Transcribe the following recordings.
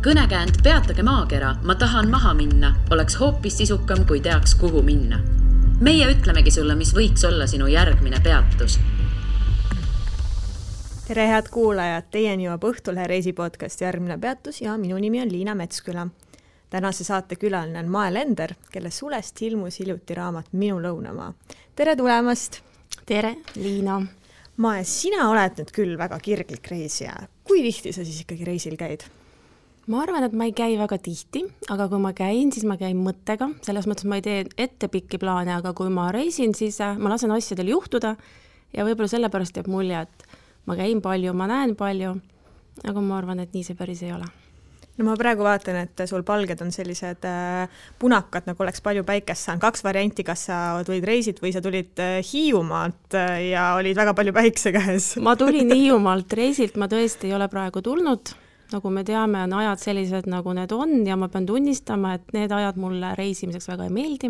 Kõnekäänd peatage maakera, ma tahan maha minna, oleks hoopis sisukam, kui teaks, kuhu minna. Meie ütlemegi sulle, mis võiks olla sinu järgmine peatus. Tere head kuulajad, teieni jõuab Õhtulehe reisipodcast Järgmine peatus ja minu nimi on Liina Metsküla. Tänase saate külaline on Mae Lender, kelle sulest ilmus hiljuti raamat Minu lõunamaa. Tere tulemast! Tere, Liina! Mae, sina oled nüüd küll väga kirglik reisija. Kui tihti sa siis ikkagi reisil käid? Ma arvan, et ma ei käi väga tihti, aga kui ma käin, siis ma käin mõttega. Selles mõttes ma ei tee ette pikki plaane, aga kui ma reisin, siis ma lasen asjadel juhtuda ja võib-olla sellepärast jääb mulje, et ma käin palju, ma näen palju, aga ma arvan, et nii see päris ei ole. No ma praegu vaatan, et sul palged on sellised punakad, nagu oleks palju päikest saanud. 2 varianti, kas sa tulid reisid või sa tulid Hiiumaalt ja olid väga palju päikse käes. Ma tulin Hiiumaalt reisilt, ma tõesti ei ole praegu tulnud. Nagu me teame, on ajad sellised, nagu need on ja ma pean tunnistama, et need ajad mulle reisimiseks väga ei meeldi.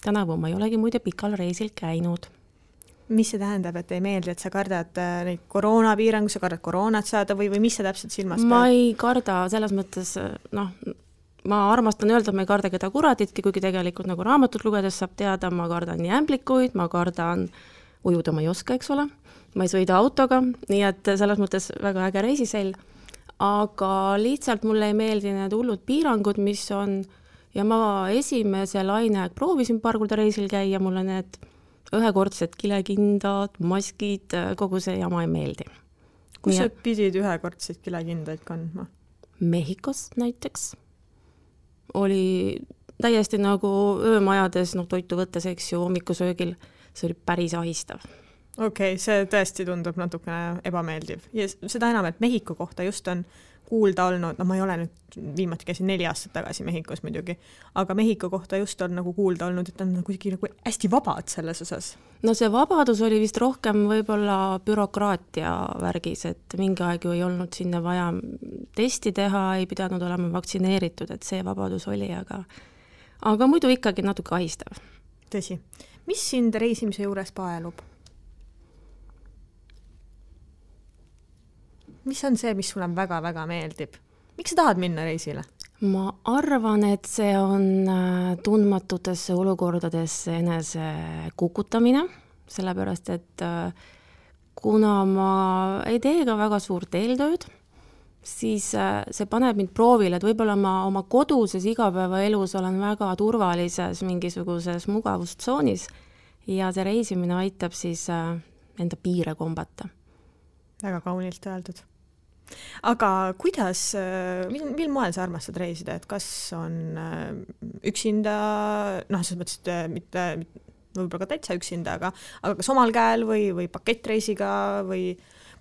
Tänavu ma ei olegi muide pikal reisil käinud. Mis see tähendab, et ei meeldi, et sa kardad neid koroonapiirangu, sa kardad koroonat saada või mis sa täpselt silmas pead? Ma ei karda selles mõttes, ma armastan öelda, et ma ei karda keda kuraditki, kuigi tegelikult nagu raamatut lugedes saab teada, ma kardan nii ämblikuid, ma kardan ujuda, ma ei oska, eks ole. Ma ei sõida autoga, nii et selles mõttes väga äge reisisell. Aga lihtsalt mulle ei meeldi need hullud piirangud, mis on, ja ma esimese laine proovisin paar korda reisil käia, mulle need ühekordsed kilekindad, maskid, kogu see jama ei meeldi. Kus sa pidid ühekordseid kilekindaid kandma? Mehhikos näiteks. Oli täiesti nagu öömajades, toitu võttes, eks ju, hommikusöögil, see oli päris ahistav. Okei, see tõesti tundub natukene ebameeldiv. Ja seda enam, et Mehhiko kohta just on kuulda olnud, ma ei ole nüüd viimati käisin 4 aastat tagasi Mehhikos muidugi, aga Mehhiko kohta just on nagu kuulda olnud, et on nagu hästi vabad selles osas. No see vabadus oli vist rohkem võib-olla bürokraatia värgis, et mingi aeg ju ei olnud sinna vaja testi teha, ei pidanud olema vaktsineeritud, et see vabadus oli, aga muidu ikkagi natuke ahistav. Tõsi. Mis sind reisimise juures paelub? Mis on see, mis sulle väga-väga meeldib? Miks sa tahad minna reisile? Ma arvan, et see on tundmatutesse olukordadesse enese kukutamine, sellepärast, et kuna ma ei tee ka väga suurt eeltööd, siis see paneb mind proovile, et võib-olla ma oma koduses igapäevaelus olen väga turvalises mingisuguses mugavustsoonis ja see reisimine aitab siis enda piire kombata. Väga kaunilt öeldud. Aga kuidas, mil moel sa armastad reisida, et kas on üksinda, selles mõttes, mitte võib-olla ka täitsa üksinda, aga kas omal käel või pakettreisiga või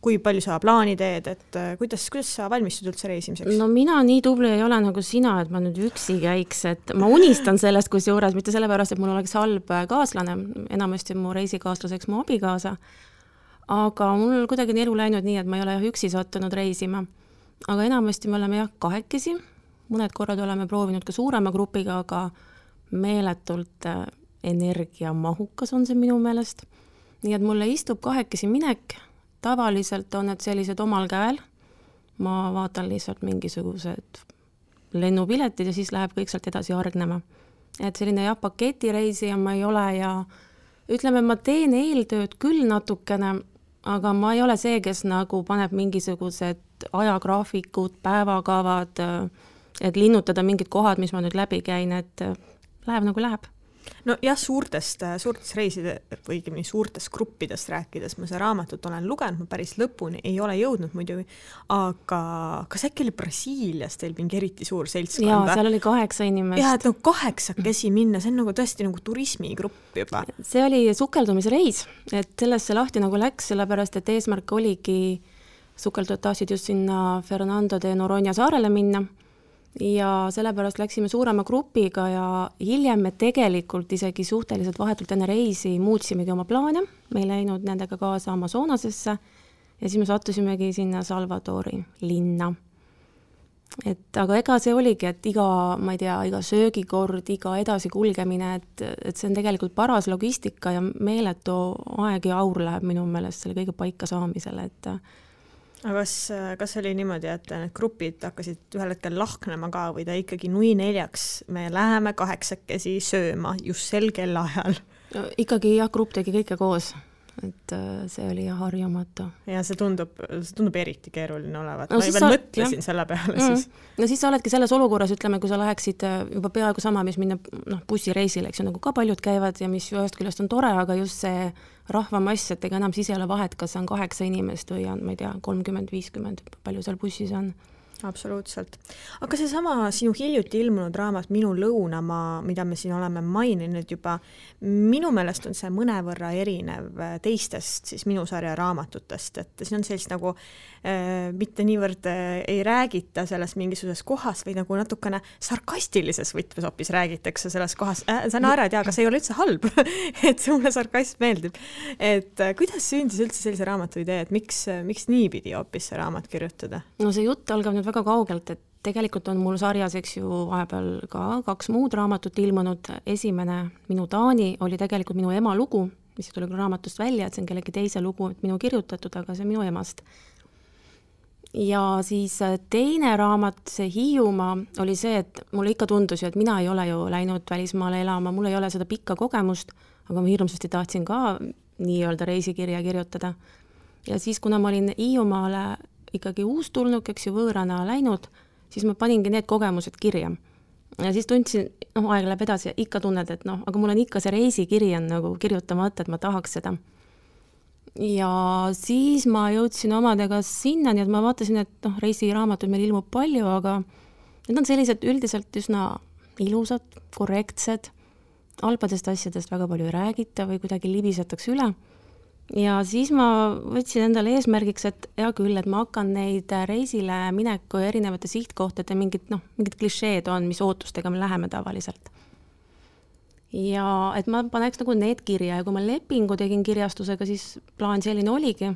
kui palju sa plaani teed, et kuidas sa valmistud üldse reisimiseks? No mina nii tubli ei ole nagu sina, et ma nüüd üksi käiks, et ma unistan sellest kusjuures, mitte sellepärast, et mul oleks halb kaaslane, enamasti mu reisikaaslaseks mu abikaasa, aga mul kuidagi elu läinud nii, et ma ei ole üksi sattunud reisima. Aga enamasti me oleme kahekesi, mõned korrad oleme proovinud ka suurema grupiga, aga meeletult energiamahukas on see minu meelest. Nii et mulle istub kahekesi minek, tavaliselt on need sellised omal käel, ma vaatan lihtsalt mingisugused lennupiletid ja siis läheb kõik sealt edasi argnema. Et selline paketireisi ja ma ei ole ja ütleme, ma teen eeltööd küll natukene, aga ma ei ole see, kes nagu paneb mingisugused ajagraafikud, päevakavad, et linnutada mingid kohad, mis ma nüüd läbi käin, et läheb nagu läheb. No jah, suurtest reiside või suurtest gruppidest rääkides ma see raamatut olen lugenud, ma päris lõpuni ei ole jõudnud muidugi, aga kas äkki oli Brasiilias teil mingi eriti suur seltskond? Jaa, seal oli 8 inimest. Jaa, et 8 minna, see on nagu tõesti nagu turismigrupp juba. See oli sukeldumisreis, et sellesse lahti nagu läks, sellepärast, et eesmärk oligi sukeldujad tahtsid just sinna Fernando de Noronha saarele minna. Ja sellepärast läksime suurema grupiga ja hiljem me tegelikult isegi suhteliselt vahetult enne reisi muutsimegi oma plaane. Me ei läinud nendega kaasa Amazonasesse ja siis me sattusimegi sinna Salvadori linna. Aga ega see oligi, et iga söögikord, iga edasi kulgemine, et see on tegelikult paras logistika ja meeletu aeg ja aur läheb minu meelest selle kõige paika saamisele, et aga kas oli niimoodi, et need grupid hakkasid ühel hetkel lahknema ka või ta ikkagi nui 4, me läheme 8 sööma just sel kellaajal? Ikkagi jah, grupp tegi kõike koos, et see oli harjumatu. Ja see tundub eriti keeruline olevat. No, ma veel mõtlesin selle peale siis. No siis sa oledki selles olukorras, ütleme, kui sa läheksid juba peaaegu sama, mis minna bussireisile, eks ju, nagu ka paljud käivad ja mis ühest küljest on tore, aga just see rahvamass, et ega enam siis ei ole vahet, kas on 8 inimest või on, ma ei tea, 30-50, palju seal bussis on. Absoluutselt. Aga see sama sinu hiljuti ilmunud raamat Minu lõunamaa, mida me siin oleme maininud juba, minu meelest on see mõnevõrra erinev teistest siis minu sarja raamatutest, et siin on sellist nagu mitte niivõrd ei räägita selles mingisuguses kohas või nagu natukene sarkastilises võtmes hoopis räägitakse selles kohas. Sa naerad, aga see ei ole üldse halb, et see mulle sarkasm meeldib. Et kuidas sündis üldse sellise raamatu idee, et miks nii pidi hoopis see raamat kirjutada? No see jutt algab nüüd väga kaugelt, et tegelikult on mul sarjas, eks ju, vahepeal ka 2 muud raamatut ilmunud. Esimene, Minu Taani, oli tegelikult minu ema lugu, mis tuli raamatust välja, et see on kellegi teise lugu, et minu kirjutatud, aga see on minu emast. Ja siis teine raamat, see Hiiumaa, oli see, et mulle ikka tundus ju, et mina ei ole ju läinud välismaale elama, mul ei ole seda pikka kogemust, aga ma hirmsasti tahtsin ka nii-öelda reisikirja kirjutada. Ja siis, kuna ma olin Hiiumaale ikkagi uustulnuk, eks ju, võõrana läinud, siis ma paningi need kogemused kirja. Ja siis tundsin, aeg läheb edasi ja ikka tunned, et aga mul on ikka see reisikiri on nagu kirjutamata, et ma tahaks seda. Ja siis ma jõudsin omadega sinna, nii et ma vaatasin, et reisiraamatud meil ilmub palju, aga need on sellised üldiselt üsna ilusad, korrektsed, alpadest asjadest väga palju ei räägita või kuidagi libisetakse üle. Ja siis ma võtsin endale eesmärgiks, et hea küll, et ma hakkan neid reisile mineku ja erinevate sihtkohtade mingid klišeed on, mis ootustega me läheme tavaliselt. Ja et ma paneks nagu need kirja ja kui ma lepingu tegin kirjastusega, siis plaan selline oligi,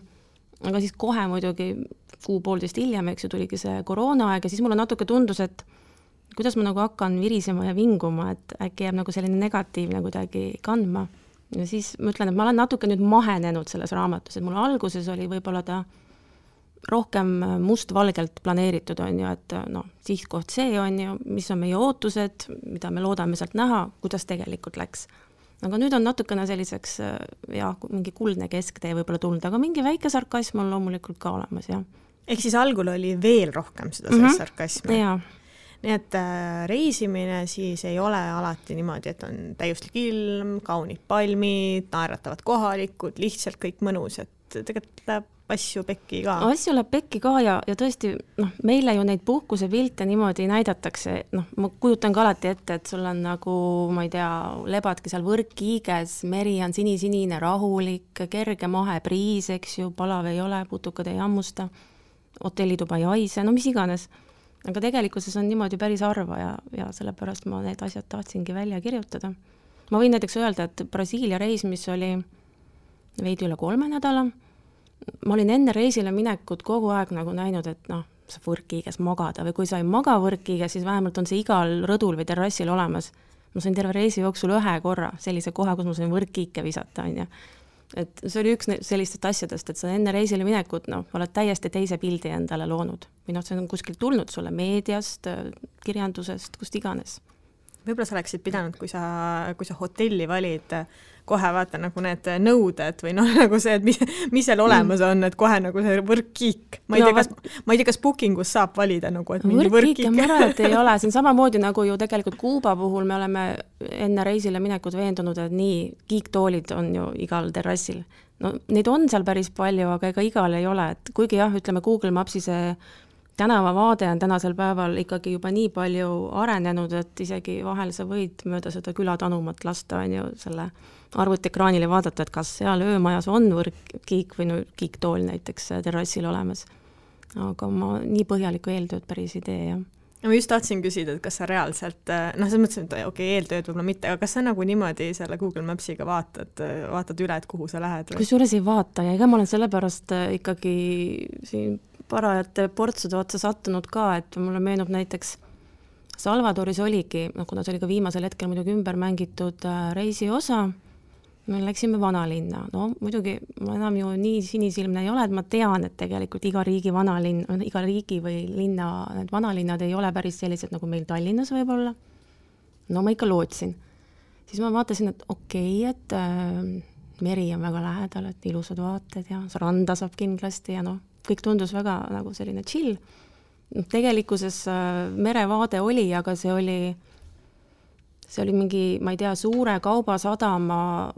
aga siis kohe muidugi 1.5 hiljem, eks ju, tuligi see koroonaaeg ja siis mulle natuke tundus, et kuidas ma nagu hakkan virisema ja vinguma, et äkki jääb nagu selline negatiivne kuidagi kandma. Ja siis ma ütlen, et ma olen natuke nüüd mahenenud selles raamatus, et mul alguses oli võib-olla ta rohkem mustvalgelt planeeritud on ju, et sihtkoht see on ju, mis on meie ootused, mida me loodame sealt näha, kuidas tegelikult läks. Aga nüüd on natukene selliseks mingi kuldne kesktee võib-olla tulnud, aga mingi väike sarkasm on loomulikult ka olemas, jah. Ehk siis algul oli veel rohkem seda sarkasmi. Jaa. Nii et reisimine siis ei ole alati niimoodi, et on täiuslik ilm, kaunid palmid, naeratavad kohalikud, lihtsalt kõik mõnus, et tegelikult läheb asju pekki ka. Asju läheb pekki ka ja tõesti, meile ju neid puhkuse pilte niimoodi näidatakse, ma kujutan ka alati ette, et sul on nagu, ma ei tea, lebadki seal võrkkiiges, meri on sinisinine, rahulik, kerge mahe priis, eks ju, palav ei ole, putukad ei hammusta, hotellituba ei haise, mis iganes. Aga tegelikkuses on niimoodi päris harva ja sellepärast ma need asjad tahtsingi välja kirjutada. Ma võin näiteks öelda, et Brasiilia reis, mis oli veidi üle 3 nädala, ma olin enne reisile minekut kogu aeg nagu näinud, et sa võrkkiiges magada või kui sa ei maga võrkkiiges, siis vähemalt on see igal rõdul või terrassil olemas. Ma sain terve reisi jooksul 1 korra sellise koha, kus ma sain võrkkiike visata, on ju. Et see oli üks sellistest asjadest, et sa enne reisile minekut, oled täiesti teise pildi endale loonud. Või see on kuskilt tulnud sulle meediast, kirjandusest, kust iganes. Võib-olla sa oleksid pidanud, kui sa hotelli valid, kohe vaata nagu need nõuded või nagu see, et mis seal olemas on, et kohe nagu see võrkkiik. Ma ei tea, kas bookingus saab valida nagu, et mingi võrkkiik. Ma arvan, et ei ole. See on samamoodi nagu ju tegelikult Kuuba puhul me oleme enne reisile minekut veendunud, et nii kiiktoolid on ju igal terrassil. Neid on seal päris palju, aga ega igal ei ole. Et kuigi jah, ütleme Google Mapsi see tänavavaade on tänasel päeval ikkagi juba nii palju arenenud, et isegi vahel sa võid mööda seda külatanumat lasta on ju selle arvutiekraanile vaadata, et kas seal öömajas on võrkkiik või kiiktool näiteks terrassil olemas. Aga ma nii põhjaliku eeltööd päris ei tee, jah. Ma just tahtsin küsida, et kas sa reaalselt, sa mõtlesin, et eeltööd võib-olla mitte, aga kas sa nagu niimoodi selle Google Mapsiga vaatad üle, et kuhu sa lähed? Kusjuures ei vaata ja ega ma olen sellepärast ikkagi siin parajate portsude otsa sattunud ka, et mulle meenub näiteks Salvadoris oligi, kuna see oli ka viimasel hetkel muidugi ümber mängitud reisiosa me läksime vanalinna, no muidugi ma enam ju nii sinisilmne ei ole, et ma tean, et tegelikult iga riigi või linna, need vanalinnad ei ole päris sellised, nagu meil Tallinnas võib-olla. No ma ikka lootsin. Siis ma vaatasin, et et meri on väga lähedal, et ilusad vaated ja randa saab kindlasti ja kõik tundus väga nagu selline chill. Tegelikkuses merevaade oli, aga see oli mingi, ma ei tea, suure kaubasadama,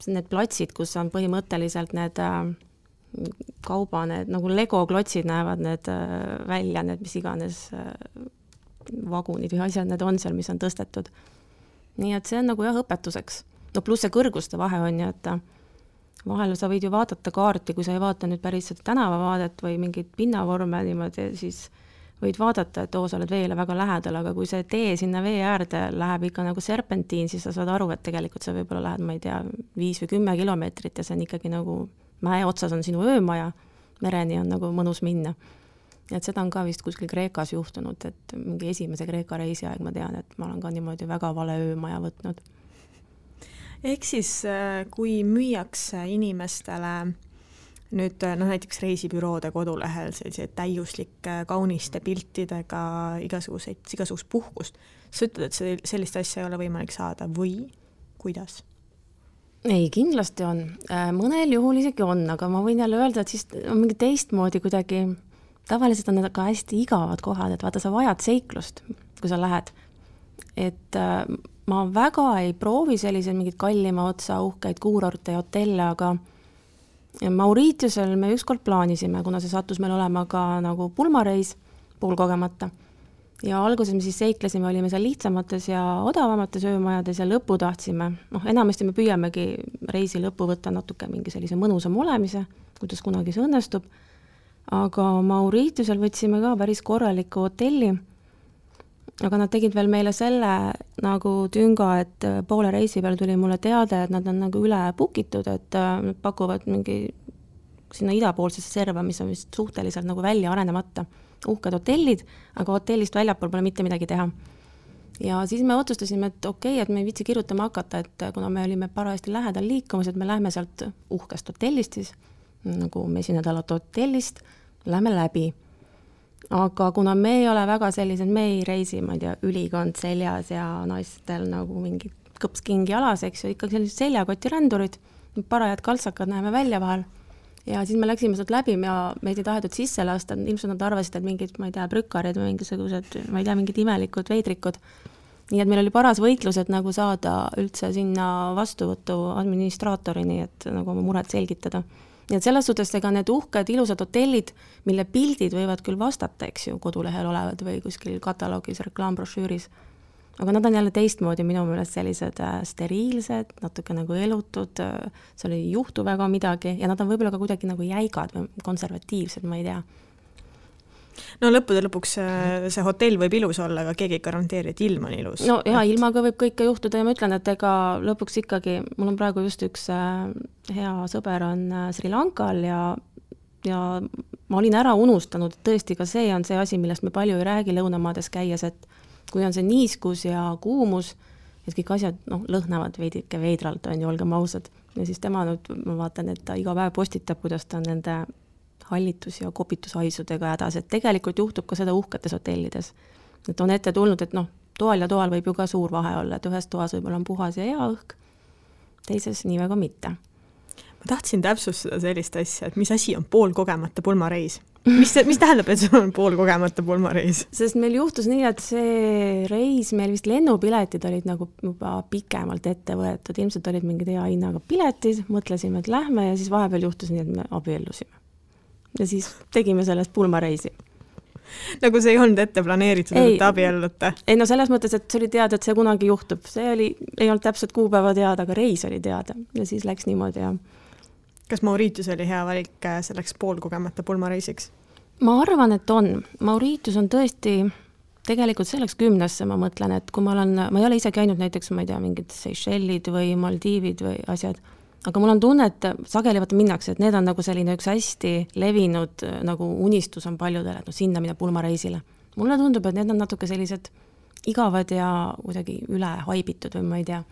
need platsid, kus on põhimõtteliselt need need nagu Lego klotsid näevad need välja, need mis iganes vagunid või asjad need on seal, mis on tõstetud. Nii et see on nagu jah õpetuseks. No pluss see kõrguste vahe on ju, et vahel sa võid ju vaadata kaarti, kui sa ei vaata nüüd päris seda tänavavaadet või mingit pinnavorme niimoodi, siis võid vaadata, et sa oled veele väga lähedal, aga kui see tee sinna vee äärde läheb ikka nagu serpentiin, siis sa saad aru, et tegelikult sa võib-olla lähed, ma ei tea, 5 või 10 kilomeetrit ja see on ikkagi nagu mäe otsas on sinu öömaja, mereni on nagu mõnus minna. Et seda on ka vist kuskil Kreekas juhtunud, et mingi esimese Kreeka reisi aeg ma tean, et ma olen ka niimoodi väga vale öömaja võtnud. Ehk siis, kui müüakse inimestele nüüd näiteks reisibüroode kodulehel sellised täiuslike kauniste piltidega igasugust puhkust. Sa ütled, et sellist asja ei ole võimalik saada või kuidas? Ei, kindlasti on. Mõnel juhul isegi on, aga ma võin jälle öelda, et siis on mingi teistmoodi kuidagi, tavaliselt on need ka hästi igavad kohad, et vaata, sa vajad seiklust, kui sa lähed. Et ma väga ei proovi selliseid mingid kallima otsa uhkeid kuurorte ja hotelle, aga Mauritiusel me ükskord plaanisime, kuna see sattus meil olema ka nagu pulmareis poolkogemata. Ja alguses me siis seiklesime, olime seal lihtsamates ja odavamates öömajades ja lõppu tahtsime. Enamasti me püüamegi reisi lõppu võtta natuke mingi sellise mõnusam olemise, kuidas kunagi see õnnestub. Aga Mauritiusel võtsime ka päris korraliku hotelli. Aga nad tegid veel meile selle nagu tünga, et poole reisi peal tuli mulle teade, et nad on nagu üle pukitud, et nad pakuvad mingi sinna idapoolsesse serva, mis on vist suhteliselt nagu välja arenemata. Uhked hotellid, aga hotellist väljapool pole mitte midagi teha. Ja siis me otsustasime, et et me ei viitsi kirjutama hakata, et kuna me olime parajasti lähedal liikumas, et me lähme sealt uhkest hotellist siis, nagu mesinädalat hotellist, lähme läbi. Aga kuna me ei ole väga sellised, me ei reisi, ma ei tea, ülikond seljas ja naistel nagu mingi kõpskingi alas, eks ju, ikkagi sellised seljakoti rändurid, parajad kaltsakad näeme välja vahel. Ja siis me läksime sealt läbi ja meid ei tahetud sisse lasta, ilmselt nad arvasid, et mingid, ma ei tea, brükarid või mingisugused, ma ei tea, mingid imelikud veidrikud. Nii et meil oli paras võitlus, et nagu saada üldse sinna vastuvõtu administraatorini, et nagu oma muret selgitada. Nii et selles suhtes ega need uhked, ilusad hotellid, mille pildid võivad küll vastata, eks ju, kodulehel olevad või kuskil kataloogis, reklaambrošüüris. Aga nad on jälle teistmoodi minu meelest sellised steriilsed, natuke nagu elutud, seal ei juhtu väga midagi ja nad on võib-olla ka kuidagi nagu jäigad või konservatiivsed, ma ei tea. No lõppude lõpuks see hotell võib ilus olla, aga keegi ei garanteeri, et ilm on ilus. No ja ilmaga võib kõike juhtuda ja ma ütlen, et ega lõpuks ikkagi, mul on praegu just üks hea sõber on Sri Lankal ja ma olin ära unustanud, et tõesti ka see on see asi, millest me palju ei räägi lõunamaades käies, et kui on see niiskus ja kuumus, et kõik asjad lõhnavad veidike veidralt, on ju, olgem ausad. Ja siis tema nüüd, ma vaatan, et ta iga päev postitab, kuidas ta on nende hallitus- ja kopitushaisudega hädas, et tegelikult juhtub ka seda uhketes hotellides. Et on ette tulnud, et toal ja toal võib ju ka suur vahe olla, et ühes toas võib-olla on puhas ja hea õhk, teises nii väga mitte. Ma tahtsin täpsustada sellist asja, et mis asi on poolkogemata pulmareis? Mis tähendab, et see on poolkogemata pulmareis? Sest meil juhtus nii, et see reis, meil vist lennupiletid olid nagu juba pikemalt ette võetud, ilmselt olid mingid hea hinnaga piletid, mõtlesime, et lähme ja siis vahepeal juhtus nii, et me abiellusime. Ja siis tegime sellest pulmareisi. Nagu see ei olnud ette planeeritud, et abiellute? Ei, no selles mõttes, et see oli teada, et see kunagi juhtub. See ei olnud täpselt kuupäeva teada, aga reis oli teada. Ja siis läks niimoodi ja... Kas Mauritius oli hea valik selleks poolkogemata pulmareisiks? Ma arvan, et on. Mauritius on tõesti tegelikult selleks 10, ma mõtlen, et kui ma ei ole ise käinud näiteks, ma ei tea, mingid Seychellid või Maldiivid või asjad, aga mul on tunne, et sageli minnakse, et need on nagu selline üks hästi levinud nagu unistus on paljudele, et sinna minna pulmareisile. Mulle tundub, et need on natuke sellised igavad ja kuidagi üle haibitud või ma ei tea.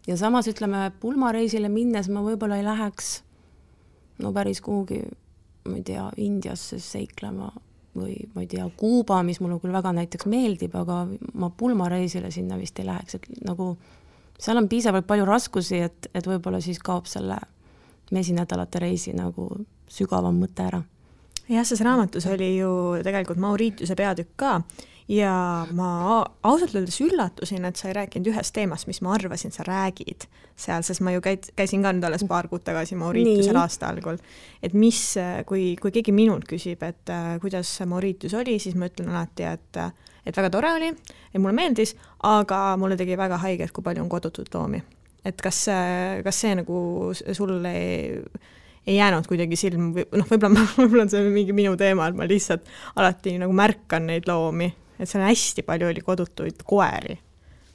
ja samas ütleme, pulmareisile minnes ma võib-olla ei läheks no päris kuhugi, ma ei tea, Indiasse seiklema või ma ei tea, Kuuba, mis mulle küll väga näiteks meeldib, aga ma pulmareisile sinna vist ei läheks, et nagu seal on piisavalt palju raskusi, et võib-olla siis kaob selle mesinädalate reisi nagu sügavam mõte ära. Jah, selles raamatus oli ju tegelikult Mauritiuse peatükk ka ja ma ausalt öeldes üllatusin, et sa ei rääkinud ühest teemast, mis ma arvasin, sa räägid seal, sest ma ju käisin ka nüüd alles paar kuud tagasi Mauritiusel aasta algul. Et mis, kui keegi minult küsib, et kuidas Mauritius oli, siis ma ütlen alati, et väga tore oli, et mulle meeldis, aga mulle tegi väga haiget, kui palju on kodutud loomi. Et kas see nagu sulle ei jäänud kuidagi silm, võib-olla on see mingi minu teema, et ma lihtsalt alati nagu märkan neid loomi, et seal hästi palju oli kodutuid koeri.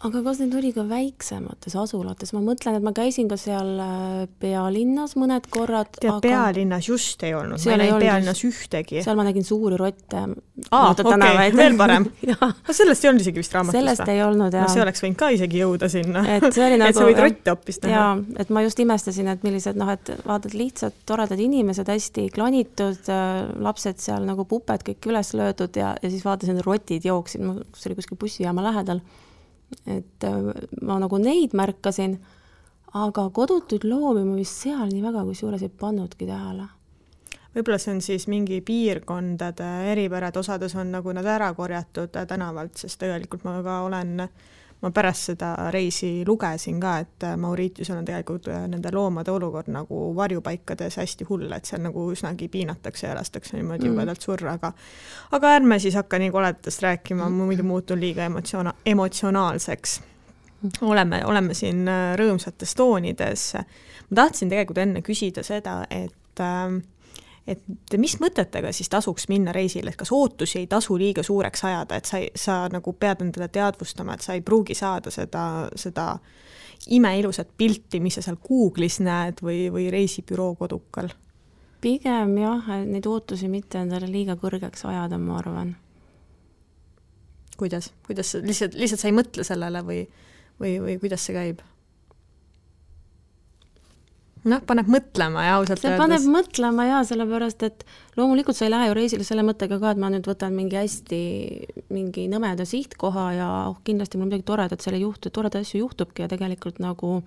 Aga kas need oli ka väiksemates asulates? Ma mõtlen, et ma käisin ka seal pealinnas mõned korrad. Aga pealinnas just ei olnud, ma ei näinud pealinnas ühtegi. Seal ma nägin suuri rotte. Okei, veel parem. Sellest ei olnud isegi vist raamatust. Sellest ei olnud, jah. See oleks võinud ka isegi jõuda sinna. Et see oli nagu, et sa võid rotte hoopis näha. Jaa, et ma just imestasin, et millised, et vaatad lihtsalt toredad inimesed, hästi klanitud, lapsed seal nagu puped kõik üles löödud ja siis vaatasin, rotid jooksid, see oli kuskil bussijaama lähedal. Et ma nagu neid märkasin, aga kodutuid loomi ma vist seal nii väga kusjuures ei pannudki tähele. Võib-olla see on siis mingi piirkondade eripärad, osades on nagu nad ära korjatud tänavalt, sest tegelikult ma pärast seda reisi lugesin ka, et Mauritiusel on tegelikult nende loomade olukord nagu varjupaikades hästi hull, et seal nagu üsnagi piinatakse ja lastakse niimoodi jubedalt surra, aga ärme siis hakka nii koledast rääkima, muidu muutun liiga emotsionaalseks. Oleme siin rõõmsates toonides. Ma tahtsin tegelikult enne küsida seda, et mis mõtetega siis tasuks minna reisile, et kas ootusi ei tasu liiga suureks ajada, et sa nagu pead endale teadvustama, et sa ei pruugi saada seda imeilusat pilti, mis sa seal Google'is näed või reisibüroo kodukal? Pigem jah, neid ootusi mitte endale liiga kõrgeks ajada, ma arvan. Kuidas lihtsalt sa ei mõtle sellele või kuidas see käib? Paneb mõtlema ja ausalt see paneb mõtlema ja sellepärast, et loomulikult sa ei lähe ju reisile selle mõttega ka, et ma nüüd võtan mingi nõmeda sihtkoha ja kindlasti mul midagi toredat seal ei juhtu, toreda asju juhtubki ja tegelikult nagu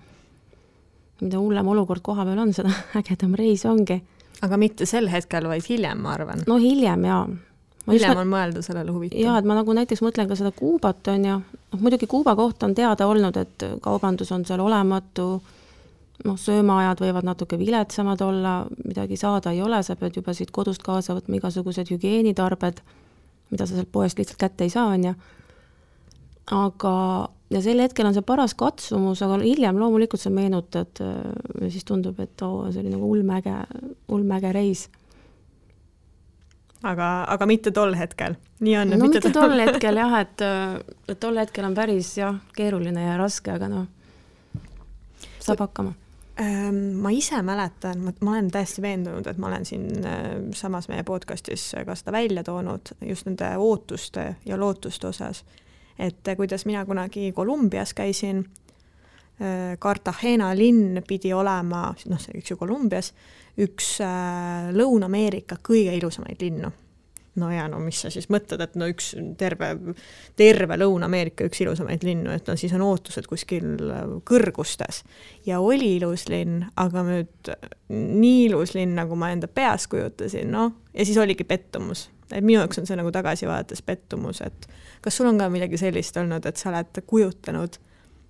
mida hullem olukord koha peal on, seda ägedam reis ongi. Aga mitte sel hetkel, vaid hiljem, ma arvan. No hiljem, jaa. Hiljem on mõelda sellele huvitav. Jaa, et ma nagu näiteks mõtlen ka seda Kuubat on ja muidugi Kuuba kohta on teada olnud, et kaubandus on seal olematu, söömaajad võivad natuke viletsamad olla, midagi saada ei ole, sa pead juba siit kodust kaasa võtma igasugused hügieenitarbed, mida sa sealt poest lihtsalt kätte ei saa, on ja. Aga, ja sel hetkel on see paras katsumus, aga hiljem loomulikult sa meenutad ja siis tundub, et see oli nagu ulmäge reis. Aga mitte tol hetkel. Nii on, no mitte tol hetkel jah, et tol hetkel on päris keeruline ja raske, aga saab hakkama. Ma ise mäletan, ma olen täiesti veendunud, et ma olen siin samas meie podcastis ka seda välja toonud just nende ootuste ja lootuste osas, et kuidas mina kunagi Kolumbias käisin, Cartagena linn pidi olema, see üks ju Kolumbias, üks Lõuna-Ameerika kõige ilusamaid linnu. Mis sa siis mõtled, et üks terve Lõuna-Ameerika üks ilusamaid linnu, et siis on ootused kuskil kõrgustes. Ja oli ilus linn, aga nüüd nii ilus linn, nagu ma enda peas kujutasin, ja siis oligi pettumus. Et minu jaoks on see nagu tagasi vaadates pettumus, et kas sul on ka midagi sellist olnud, et sa oled kujutanud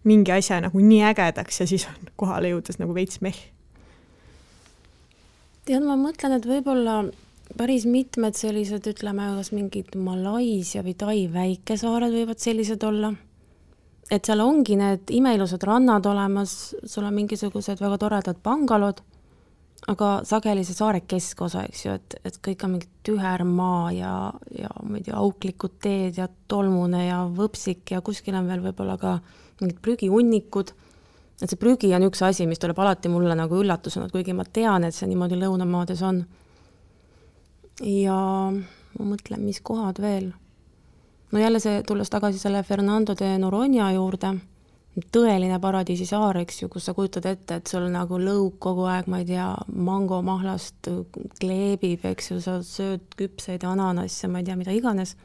mingi asja nagu nii ägedaks ja siis on kohale jõudes nagu veits meh? Tead, ma mõtlen, et võib-olla päris mitmed sellised, ütleme, kas mingid Malaisia või Tai väikesaared võivad sellised olla. Et seal ongi need imeilusad rannad olemas, sul on mingisugused väga toredad bangalod, aga sageli see saare keskosa, eks ju, et kõik on mingi tüher maa ja ma ei tea, auklikud teed ja tolmune ja võpsik ja kuskil on veel võib-olla ka mingid prügihunnikud. Et see prügi on üks asi, mis tuleb alati mulle nagu üllatusena, kuigi ma tean, et see niimoodi lõunamaades on. Ja ma mõtlen, mis kohad veel. No jälle see tulles tagasi selle Fernando de Noronha juurde, tõeline paradiisi saar, eks ju, kus sa kujutad ette, et sul nagu lõug kogu aeg, ma ei tea, mangomahlast kleebib, eks ju, sa sööd küpseid ananasse, ma ei tea, mida iganes.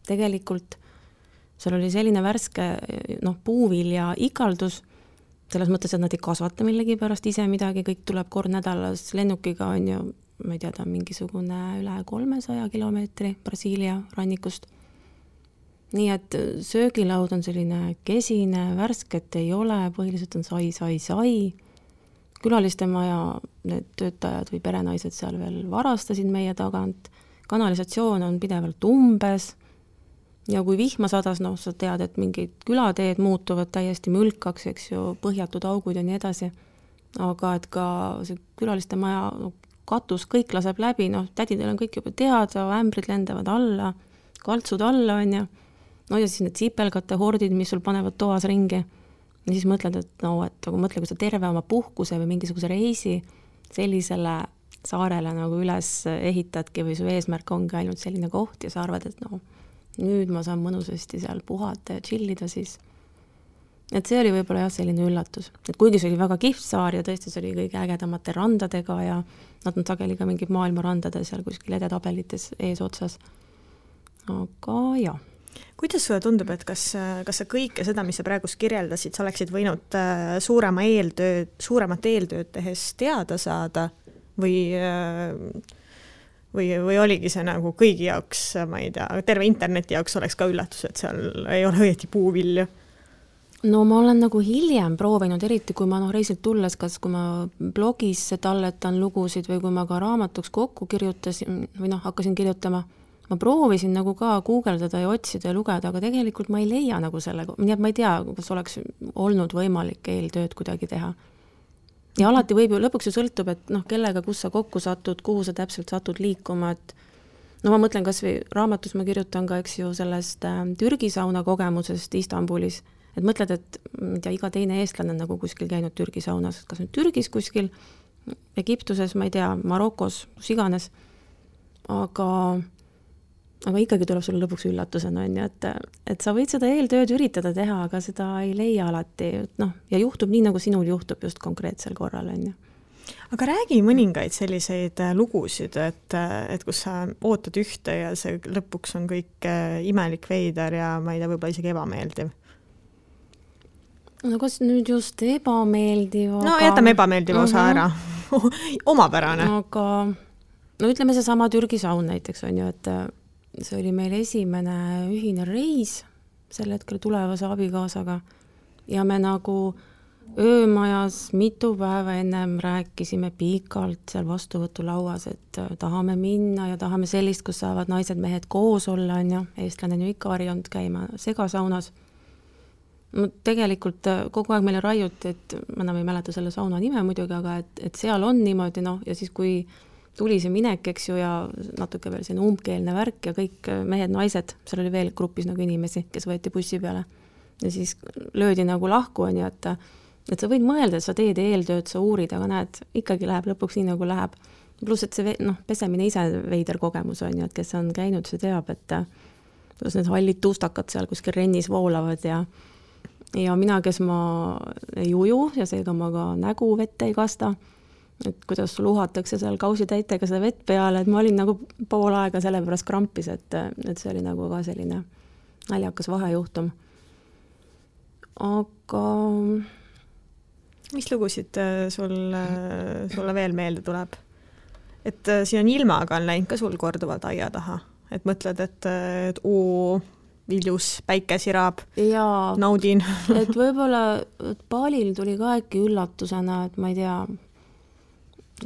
Tegelikult seal oli selline värske puuvilja ikaldus, selles mõttes, et nad ei kasvata millegi pärast ise midagi, kõik tuleb kord nädalas lennukiga, on ju, ma ei tea, ta on mingisugune üle 300 kilomeetri Brasiilia rannikust. Nii et söögilaud on selline kesine, värsket ei ole, põhiliselt on sai. Külaliste maja, need töötajad või perenaised seal veel varastasid meie tagant. Kanalisatsioon on pidevalt umbes. Ja kui vihma sadas, sa tead, et mingid külateed muutuvad täiesti mülkaks, eks ju, põhjatud augud ja nii edasi. Aga et ka see külaliste maja katus, kõik laseb läbi, tädidel on kõik juba teada, ämbrid lendavad alla, kaltsud alla, on ju. Ja siis need sipelgate hordid, mis sul panevad toas ringi. Ja siis mõtled, et mõtle, kui sa terve oma puhkuse või mingisuguse reisi sellisele saarele nagu üles ehitadki või su eesmärk ongi ainult selline koht ja sa arvad, et nüüd ma saan mõnusasti seal puhata ja chillida siis. Et see oli võib-olla selline üllatus. Et kuigi see oli väga kihvt saar ja tõesti see oli kõige ägedamate randadega ja nad on sageli ka mingid maailma randade seal kuskil edetabelites ees otsas. Aga jah. Kuidas sulle tundub, et kas sa kõike seda, mis sa praegust kirjeldasid, sa oleksid võinud suuremat eeltööd tehes teada saada või oligi see nagu kõigi jaoks, ma ei tea, terve interneti jaoks oleks ka üllatus, et seal ei ole õieti puuvilju? Ma olen nagu hiljem proovinud, eriti kui ma reisilt tulles, kas kui ma blogis talletan lugusid või kui ma ka raamatuks kokku kirjutasin või hakkasin kirjutama, ma proovisin nagu ka guugeldada ja otsida ja lugeda, aga tegelikult ma ei leia nagu selle, nii et ma ei tea, kas oleks olnud võimalik eeltööd kuidagi teha. Ja alati võib ju, lõpuks ju sõltub, et kellega, kus sa kokku satud, kuhu sa täpselt satud liikuma, et ma mõtlen kas või raamatus ma kirjutan ka, eks ju, sellest Türgi sauna kogemusest Istanbulis, et mõtled, et iga teine eestlane on nagu kuskil käinud Türgi saunas, kas nüüd Türgis kuskil, Egiptuses, ma ei tea, Marokos, kus iganes, aga ikkagi tuleb sulle lõpuks üllatusena, et sa võid seda eeltööd üritada teha, aga seda ei leia alati, ja juhtub nii, nagu sinul juhtub just konkreetsel korral, on ju. Aga räägi mõningaid selliseid lugusid, et kus sa ootad ühte ja see lõpuks on kõik imelik veider ja ma ei tea, võib-olla isegi ebameeldiv. Kas nüüd just ebameeldiv, aga... jätame ebameeldiva osa ära. Omapärane. Aga ütleme see sama Türgi saun näiteks on ju, et see oli meil esimene ühine reis sel hetkel tulevase abikaasaga ja me nagu öömajas mitu päeva ennem rääkisime pikalt seal vastuvõtulauas, et tahame minna ja tahame sellist, kus saavad naised, mehed koos olla, on ju, eestlane on ju ikka harjunud käima segasaunas. Tegelikult kogu aeg meile raiuti, et ma enam ei mäleta selle sauna nime muidugi, aga et seal on niimoodi, ja siis kui tuli see minek, eks ju, ja natuke veel selline umbkeelne värk ja kõik mehed, naised, seal oli veel grupis nagu inimesi, kes võeti bussi peale. Ja siis löödi nagu lahku, on ju, et sa võid mõelda, et sa teed eeltööd, sa uurid, aga näed, ikkagi läheb lõpuks nii, nagu läheb. Pluss, et see pesemine ise veider kogemus on ju, et kes on käinud, see teab, et kuidas need hallid tuustakad seal kuskil rennis voolavad ja mina, kes ma ei uju ja seega ma ka nägu vette ei kasta, et kuidas sul uhatakse seal kausitäitega seda vett peale, et ma olin nagu pool aega selle pärast krampis, et see oli nagu ka selline naljakas vahejuhtum. Aga... Mis lugusid sulle veel meelde tuleb? Et siin on ilmaga on läinud ka sul korduvalt aia taha, et mõtled, et viljus päike sirab, naudin. Et võib-olla Balil tuli ka äkki üllatusena, et ma ei tea,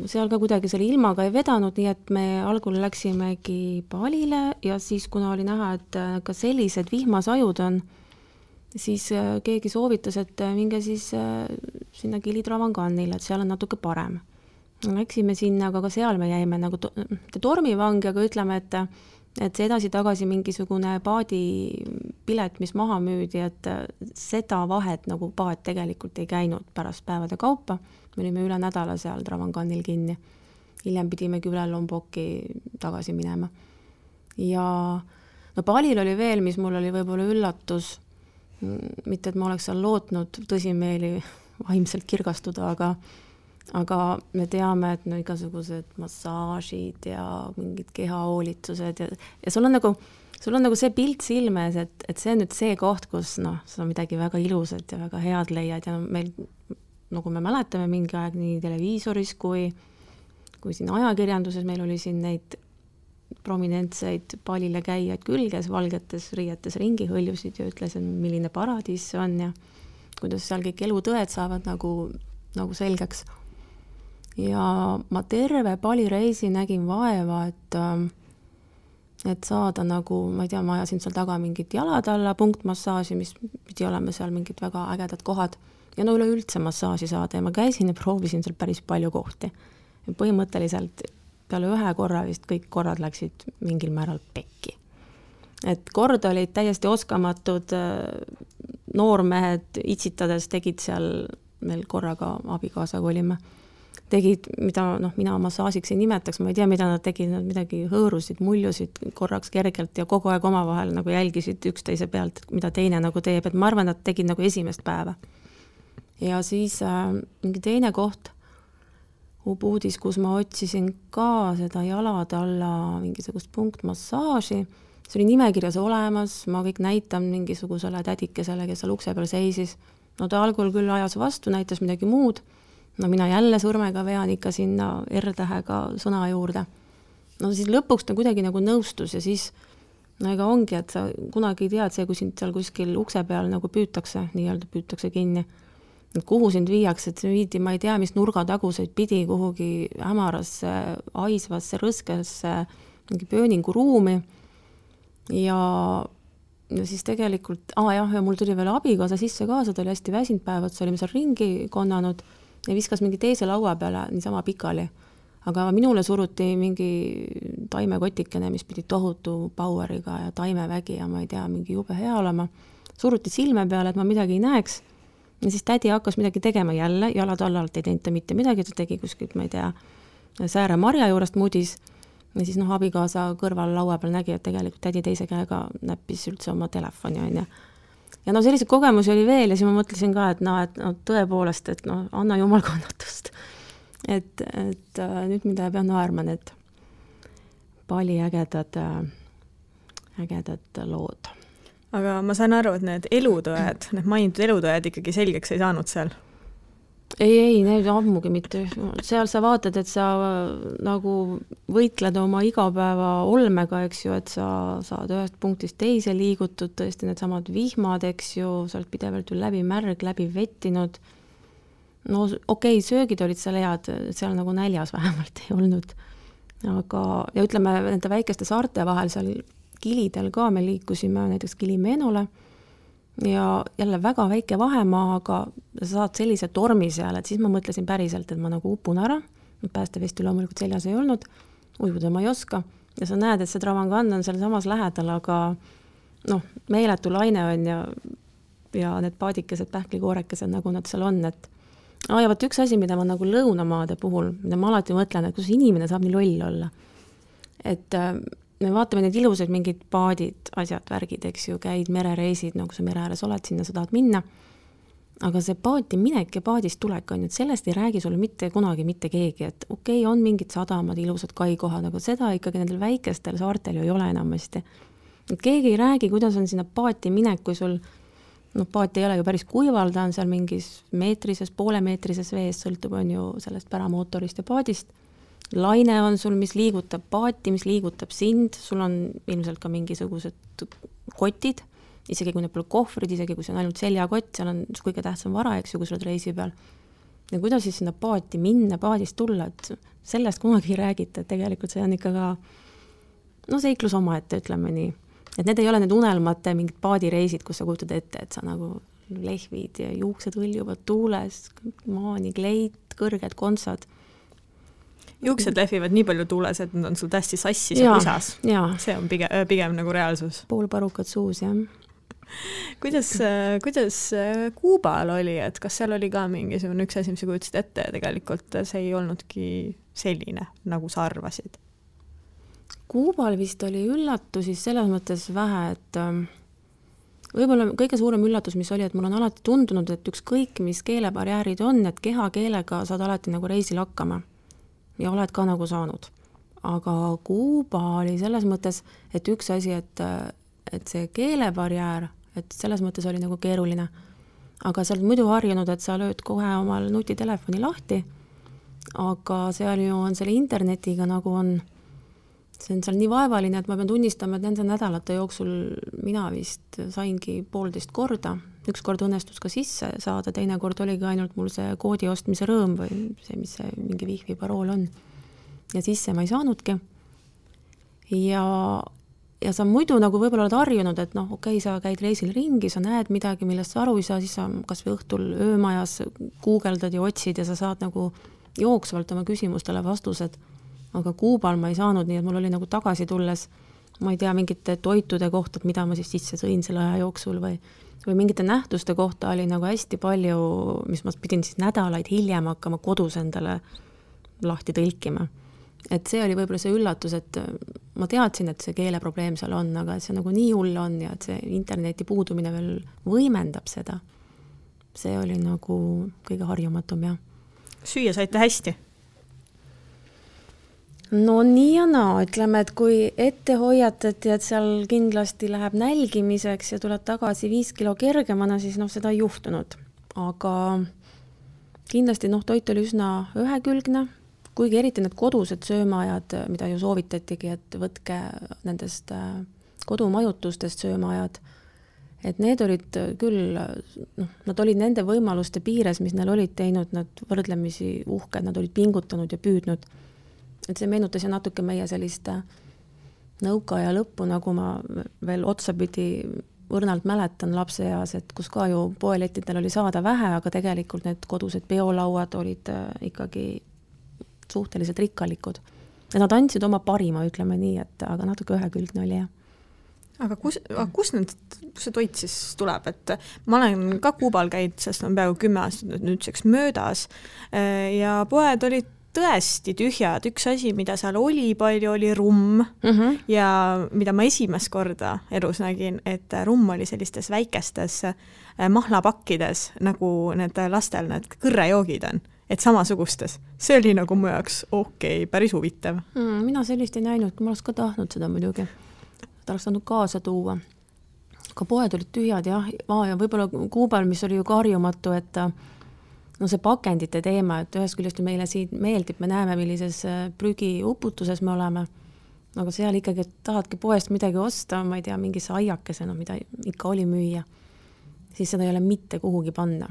seal ka kuidagi selle ilmaga ei vedanud, nii et me algul läksimegi Balile ja siis, kuna oli näha, et ka sellised vihmasajud on, siis keegi soovitas, et minge siis sinna Kili-Travanganile, et seal on natuke parem. Läksime sinna, aga ka seal me jäime nagu tormivangi, aga ütleme, et see edasi-tagasi mingisugune paadipilet, mis maha müüdi, et seda vahet nagu paad tegelikult ei käinud pärast päevade kaupa. Me olime üle nädala seal Travanganil kinni. Hiljem pidimegi üle Lombokki tagasi minema. Ja Balil oli veel, mis mul oli võib-olla üllatus, mitte, et ma oleks seal lootnud tõsimeeli vaimselt kirgastuda, aga me teame, et no igasugused massaažid ja mingid kehahoolitused ja sul on nagu see pilt silmes, et see on nüüd see koht, kus sa midagi väga ilusat ja väga head leiad ja meil, nagu me mäletame mingi aeg nii televiisoris kui siin ajakirjanduses, meil oli siin neid prominentseid palile käijaid küll, kes valgetes riietes ringi hõljusid ja ütles, milline paradiis see on ja kuidas seal kõik elutõed saavad nagu selgeks. Ja ma terve palireisi nägin vaeva, et saada nagu, ma ei tea, ma ajasin seal taga mingit jalad alla punktmassaaži, mis pidi olema seal mingid väga ägedad kohad ja üleüldse massaaži saada ja ma käisin ja proovisin seal päris palju kohti. Ja põhimõtteliselt peale ühe korra vist kõik korrad läksid mingil määral pekki. Et kord olid täiesti oskamatud noormehed itsitades tegid seal, meil korraga abikaasaga olime, tegid, mida mina massaažiks ei nimetaks, ma ei tea, mida nad tegid, nad midagi hõõrusid, muljusid korraks kergelt ja kogu aeg omavahel nagu jälgisid üksteise pealt, mida teine nagu teeb, et ma arvan, nad tegid nagu esimest päeva. Ja siis mingi teine koht, Ubuudis, kus ma otsisin ka seda jalad alla mingisugust punktmassaaži, see oli nimekirjas olemas, ma kõik näitan mingisugusele tädikesele, kes seal ukse peal seisis. No ta algul küll ajas vastu, näitas midagi muud. No mina jälle sõrmega vean ikka sinna R-tähega sõna juurde. No siis lõpuks ta kuidagi nagu nõustus ja siis ega ongi, et sa kunagi tead see, kui sind seal kuskil ukse peal nagu püütakse, nii-öelda püütakse kinni. Et kuhu sind viiakse, et see viidi, ma ei tea, mis nurgataguseid pidi kuhugi hämarasse, aisvasse, rõskesse mingi pööningu ruumi. Ja siis tegelikult, ja mul tuli veel abikaasa sisse kaasa, ta oli hästi väsinud päevad, see olime seal ringi konnanud ja viskas mingi teise laua peale niisama pikali. Aga minule suruti mingi taimekotikene, mis pidi tohutu poweriga ja taimevägi ja ma ei tea, mingi jube hea olema. Suruti silme peale, et ma midagi ei näeks. Ja siis tädi hakkas midagi tegema jälle, jalad allalt ei teinud mitte midagi, ta tegi kuskilt, ma ei tea, sääre marja juurest mudis. Ja siis abikaasa kõrval laua peal nägi, et tegelikult tädi teise käega näppis üldse oma telefoni. Ja selliseid kogemusi oli veel ja siis ma mõtlesin ka, et tõepoolest, et anna jumal kannatust. Et nüüd mida pean naerma need pali ägedad lood. Aga ma saan aru, et need elutõed, need mainitud elutõed ikkagi selgeks ei saanud seal? Ei, need ammugi mitte. Seal sa vaatad, et sa nagu võitled oma igapäeva olmega, eks ju, et sa saad ühest punktist teise liigutud, tõesti need samad vihmad, eks ju, sa oled pidevalt läbi märg, läbi vettinud. No okei, söögid olid seal head, seal nagu näljas vähemalt ei olnud. Aga, ja ütleme, nende väikeste saarte vahel seal Kilidel ka me liikusime näiteks Kilimenole ja jälle väga väike vahemaa, aga sa saad sellise tormi seal, et siis ma mõtlesin päriselt, et ma nagu upun ära, päästevesti loomulikult seljas ei olnud, ujuda ma ei oska ja sa näed, et see Travangan on seal samas lähedal, aga meeletu laine on ja need paadikesed, pähklikoorekesed, nagu nad seal on, et ja võt üks asi, mida ma nagu lõunamaade puhul, mida ma alati mõtlen, et kus inimene saab nii loll olla, et me vaatame need ilusad mingid paadid, asjad, värgid, eks ju, käid merereisid, nagu sa mere ääres oled, sinna sa tahad minna. Aga see paati minek ja paadist tulek on, et sellest ei räägi sulle mitte kunagi mitte keegi, et okei, on mingid sadamad, ilusad kaikohad, aga seda ikkagi nendel väikestel saartel ju ei ole enamasti. Et keegi ei räägi, kuidas on sinna paati minek, kui sul, paati ei ole ju päris kuival, ta on seal mingis meetrises, poolemeetrises vees, sõltub on ju sellest päramootorist ja paadist. Laine on sul, mis liigutab paati, mis liigutab sind, sul on ilmselt ka mingisugused kotid, isegi kui need pole kohvrid, isegi kui see on ainult seljakott, seal on kõige tähtsam vara, eks ju, kui sa oled reisi peal. Ja kuidas siis sinna paati minna, paadist tulla, et sellest kunagi ei räägita, et tegelikult see on ikka ka seiklus omaette, ütleme nii. Et need ei ole need unelmate mingid paadireisid, kus sa kujutad ette, et sa nagu lehvid ja juuksed hõljuvad tuules, maani kleit, kõrged kontsad. Juuksed lehvivad nii palju tuules, et nad on sul tästi sassis ja kusas. See on pigem nagu reaalsus. Pool parukad suus, jah. Kuidas Kuubal oli, et kas seal oli ka mingisugune üks asi, mis sa kujutasid ette ja tegelikult see ei olnudki selline, nagu sa arvasid? Kuubal vist oli üllatusi selles mõttes vähe, võib-olla kõige suurem üllatus, mis oli, et mul on alati tundunud, et ükskõik, mis keelebarjäärid on, et kehakeelega saad alati nagu reisil hakkama ja oled ka nagu saanud. Aga Kuuba oli selles mõttes, et üks asi, et see keelebarjäär, et selles mõttes oli nagu keeruline. Aga sa oled muidu harjunud, et sa lööd kohe omal nutitelefoni lahti, aga seal ju on selle internetiga nagu on, see on seal nii vaevaline, et ma pean tunnistama, et nende nädalate jooksul mina vist saingi 1,5 korda. Üks kord õnnestus ka sisse saada, teine kord oligi ainult mul see koodi ostmise rõõm või see, mis see mingi Wi-Fi parool on. Ja sisse ma ei saanudki. Ja sa muidu nagu võib-olla oled harjunud, et noh, okei, sa käid reisil ringi, sa näed midagi, millest sa aru ei saa, siis sa kas või õhtul öömajas guugeldad ja otsid ja sa saad nagu jooksvalt oma küsimustele vastused. Aga Kuubal ma ei saanud, nii et mul oli nagu tagasi tulles, ma ei tea, mingite toitude kohta, mida ma siis sisse sõin selle aja jooksul või mingite nähtuste kohta oli nagu hästi palju, mis ma pidin siis nädalaid hiljem hakkama kodus endale lahti tõlkima. Et see oli võib-olla see üllatus, et ma teadsin, et see keeleprobleem seal on, aga see nagu nii hull on ja et see interneti puudumine veel võimendab seda. See oli nagu kõige harjumatum, jah. Süüa saite hästi? No nii ja naa, ütleme, et kui ette hoiatati, et seal kindlasti läheb nälgimiseks ja tuleb tagasi 5 kilo kergemana, siis seda ei juhtunud. Aga kindlasti toit oli üsna ühekülgne, kuigi eriti need kodused söömaajad, mida ju soovitatigi, et võtke nendest kodumajutustest söömaajad, et need olid küll, nad olid nende võimaluste piires, mis neil olid teinud, nad võrdlemisi uhked, nad olid pingutanud ja püüdnud. Et see meenutas ja natuke meie sellist nõukaaja lõppu, nagu ma veel otsapidi õrnalt mäletan lapse eas, et kus ka ju poelettidel oli saada vähe, aga tegelikult need kodused peolauad olid ikkagi suhteliselt rikkalikud. Ja nad andsid oma parima, ütleme nii, et aga natuke ühekülgne oli, jah. Aga kus see toit siis tuleb? Et ma olen ka Kuubal käinud, sest on peaaegu 10 aastat nüüdseks möödas ja poed olid tõesti tühjad. Üks asi, mida seal oli palju, oli rumm ja mida ma esimest korda elus nägin, et rumm oli sellistes väikestes mahlapakkides, nagu need lastel need kõrrejoogid on, et samasugustes. See oli nagu mu jaoks päris huvitav. Mina sellist ei näinud, ma oleks ka tahtnud seda muidugi. Ta oleks saanud kaasa tuua. Ka poed olid tühjad, jah. Ja võib-olla Kuubal, mis oli ju harjumatu, et see pakendite teema, et ühest küljest meile siin meeldib, me näeme, millises prügiuputuses me oleme, aga seal ikkagi tahadki poest midagi osta, ma ei tea, mingi aiakesena, mida ikka oli müüa, siis seda ei ole mitte kuhugi panna.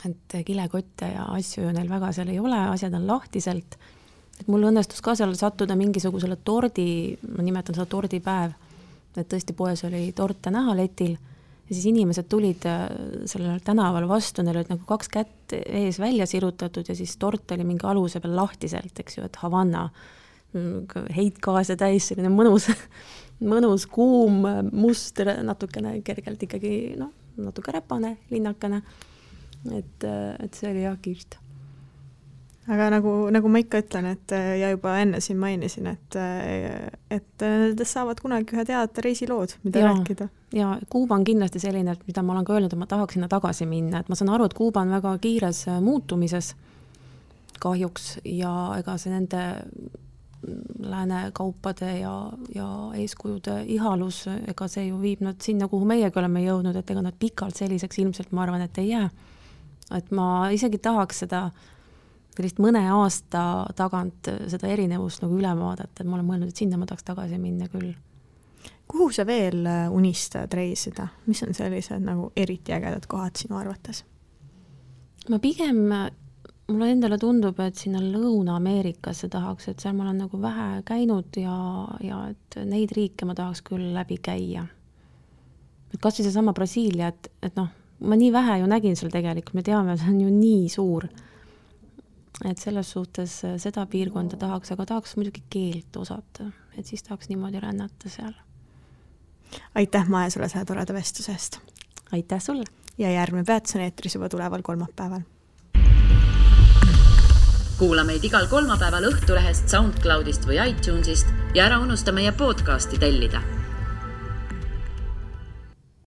Et kilekotte ja asju ju neil väga seal ei ole, asjad on lahtiselt. Et mul õnnestus ka seal sattuda mingisugusele tordi, ma nimetan seda tordipäev, et tõesti poes oli torte näha letil ja siis inimesed tulid sellel tänaval vastu, neil olid nagu 2 kätt ees välja sirutatud ja siis tort oli mingi aluse peal lahtiselt, eks ju, et Havanna heitgaase täis, selline mõnus kuum must, natukene kergelt ikkagi, natuke räpane, linnakene. Et see oli jah kihvt. Aga nagu ma ikka ütlen, et ja juba enne siin mainisin, et nendest saavad kunagi ühe teada reisilood, mida rääkida. Ja Kuuba on kindlasti selline, et mida ma olen ka öelnud, et ma tahaks sinna tagasi minna. Et ma saan aru, et Kuuba on väga kiires muutumises kahjuks ja ega see nende lääne kaupade ja eeskujude ihalus, ega see ju viib nad sinna, kuhu meiegi oleme jõudnud, et ega nad pikalt selliseks ilmselt ma arvan, et ei jää. Et ma isegi tahaks seda sellist mõne aasta tagant seda erinevust nagu üle vaadata, et ma olen mõelnud, et sinna ma tahaks tagasi minna küll. Kuhu sa veel unistad reisida? Mis on sellised nagu eriti ägedad kohad sinu arvates? Ma pigem, mulle endale tundub, et sinna Lõuna-Ameerikasse tahaks, et seal ma olen nagu vähe käinud ja et neid riike ma tahaks küll läbi käia. Et kas või see sama Brasiilia, et ma nii vähe ju nägin seal tegelikult, me teame, see on ju nii suur. Et selles suhtes seda piirkonda tahaks, aga tahaks muidugi keelt osata, et siis tahaks niimoodi rännata seal. Aitäh, Maja, sulle selle toreda vestusest. Aitäh sulle. Ja järgmine peatus on eetris juba tuleval kolmapäeval. Kuula meid igal kolmapäeval Õhtulehest, SoundCloudist või iTunesist ja ära unusta meie podcasti tellida.